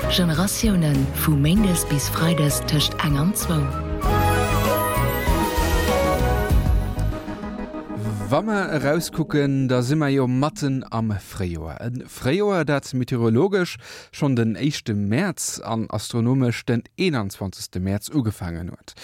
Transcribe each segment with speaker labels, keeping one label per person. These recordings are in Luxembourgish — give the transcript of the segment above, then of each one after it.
Speaker 1: Generatiounen, vu méindes bis freides tëscht eng an zwou.
Speaker 2: Wa mer erauskucken, da si mer jo matten am Fréijoer. E Fréijoer, dat meteorologesch schonn den éischte Mäerz an astronomesch den 21. Mäerz ugefaangen huet.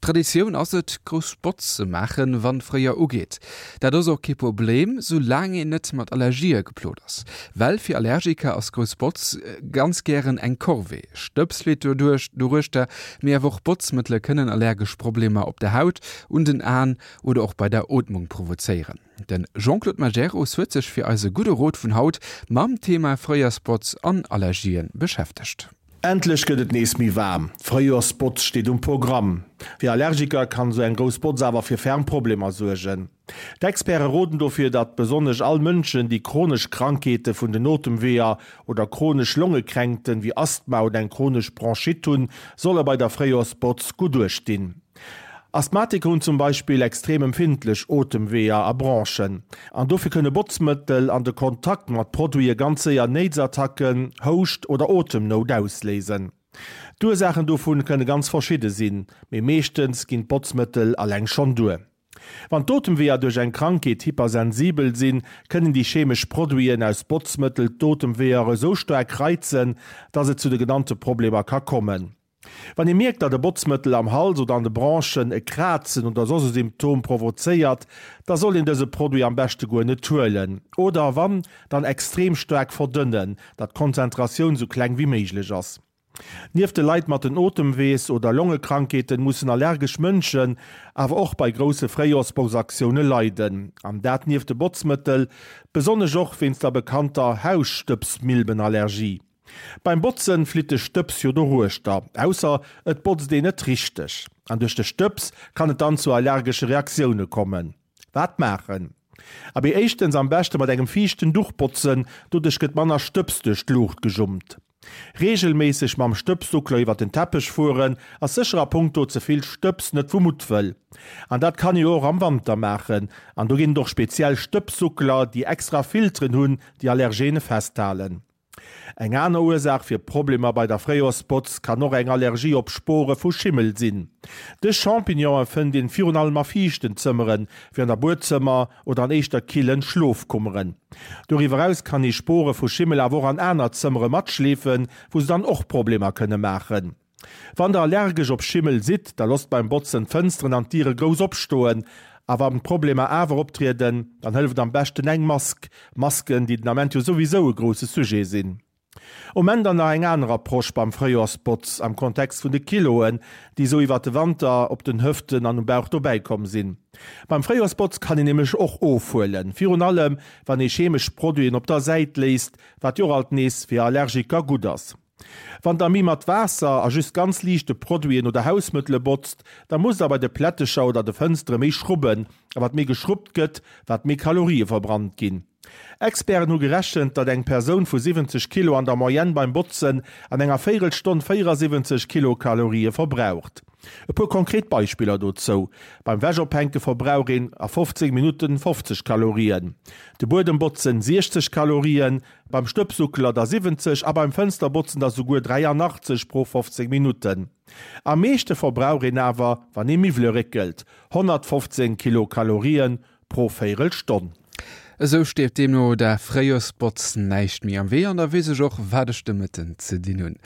Speaker 2: Traditioun ass et, grouss Botz ze maachen, wann d'Fréijoer ugeet. Dat ass och kee Problem, sou laang een net mat Allergië geplot ass. Well fir Allergiker ass grouss Botz ganz gären eng Corvée. Stëbs flitt doduerch doruechter, mee awer och Botzmëttele kënnen allergesch Problemer op der Haut, un den Aen oder och bei der Ootmung provozéieren. De Jean-Claude Majerus huet sech fir eise gudde Rot vun haut mam Thema Fréijoersbotz an Allergien beschäftegt.
Speaker 3: Endlech gëtt et nees méi waarm, d'Fréijoersbotz steet um Programm. Fir Allergiker kann esou eng grouss Botz awer fir ferm Problemer suergen. D'Experte roden dofir, datt besonnesch all Mënschen, déi chronesch Krankheete vun den Otemweeër oder chronesch Longekränkten wéi Asthma oder eng chronesch Bronchite hunn, solle bei der Fréijoersbotz gutt uecht dinn. Asthmatiker hunn zum Beispill extrem empfindlech Otemweeër a Bronchen an dofir kënne Botzmëttel an de Kontakt mat Produite ganz séier Néitsattacken, Houscht oder Otemnout ausléisen. D'Ursaachen dovun kënne ganz verschidde sinn, mee meeschtens ginn d'Botzmëttel alleng schonn duer. Wann d'Otemweeër duerch eng Krankheet hypersensibel sinn, kënnen déi chemesch Produiten aus Botzmëttel d'Otemweeër esou staark reizen, dass et zu de genannte Problemer ka kommen. Wann ee mierkt, datt e Botzmëttel am Hals oder an de Bronchen e Krazen oder soss e Symptom provozéiert, da soll een dëse Produit am beschte guer net huelen oder wann, dann extrem staark verdënnen, datt d'Konzentratioun sou kleng wéi méiglech ass. Nieft de Leit mat den Otemwees oder Longekrankheeten mussen allergesch Mënschen awer och bei grousse Fréijoersbotzaktioune leiden, an dat nieft de Botzmëttel besonnesch och wéinst der bekannter Hausstëbsmilbenallergie. Beim Botzen flitt de Stëbs jo doruechter, ausser et botzt een net richteg. An duerch de Stëbs kann et dann zu allergesche Reaktioune kommen. Wat maachen? Abee éischtens am beschte mat engem fiichten Duch botzen, doduerch gëtt manner Stëbs duerch d'Luucht gejummt. Reegelméisseg mam Stëbssuckler iwwer den Teppech fueren ass sécher a punkto ze vill Stëbs net vu Muttwëll. An dat kann ee jo och am Wanter maachen. An do ginn et och speziell Stëbssuckler, déi extra Filteren hunn, déi Allergene festhalen. Eng aner Ursaach fir Problemer bei der Fréijoersbotz kann och eng Allergie op Spore vu Schimmel sinn. Dës Champignonen fënnt een virun allem a fiichten Zëmmeren, wéi an der Buedzëmmer oder an éischter killen Schlofkummeren. Doriwwer eraus kann ee Spore vu Schimmel awer och an aner Zëmmere matschleefen, wou se dann och Problemer kënne maachen. Wann der allergesch op Schimmel sidd, da losst beim Botzen d'Fënsteren an d'Diere grouss opstoen. A wann d'Problemer awer optrieden, dann hëlleft am beschten eng Mask. Masken, déi den Ament jo souwisou e grousse Sujet sinn. Um Enn dann nach eng aner Approche beim Fréijoersbotz am Kontext vun de Kiloen, déi esou iwwert de Wanter op den Hëften an um Bauch dobäi komm sinn. Beim Fréijoersbotz kann een nämlech och ofhuelen, virun allem wann ee chemesch Produiten op der Säit léisst, wat jo och alt nees fir Allergiker gutt ass. Wann der méi mat Waasser a just ganz liichte Produiten oder Hausmëttele botzt, da musst der bei de Plättecher oder de Fënstere méi schrubben. A wat méi geschrubbt gëtt, wat méi Kalorië verbrannt ginn. Experten hu gerechent, datt eng Persoun vu 70 Kilo an der Moyenne beim Botzen an enger Véirelstonn 74 Kilokalorië verbraucht. E puer konkret Beispiller dozou, Beim Wäschophänke verbrauch een a 15 Minutten 50 Kalorien, de Buedem botzen 60 Kalorien, Beim Stëbsuckler der 70 a beim Fënsterbotzen der souguer 83 pro 15 Minutten. Am meeschte verbrauch een awer, wann ee Miwwele réckelt, 115 Kilokalorien pro Véirelstonn.
Speaker 2: Esou steet deemno der Fréijoersbotz näischt méi am Wee an da weess ech och, wat ech de Mëtten ze dinn hunn.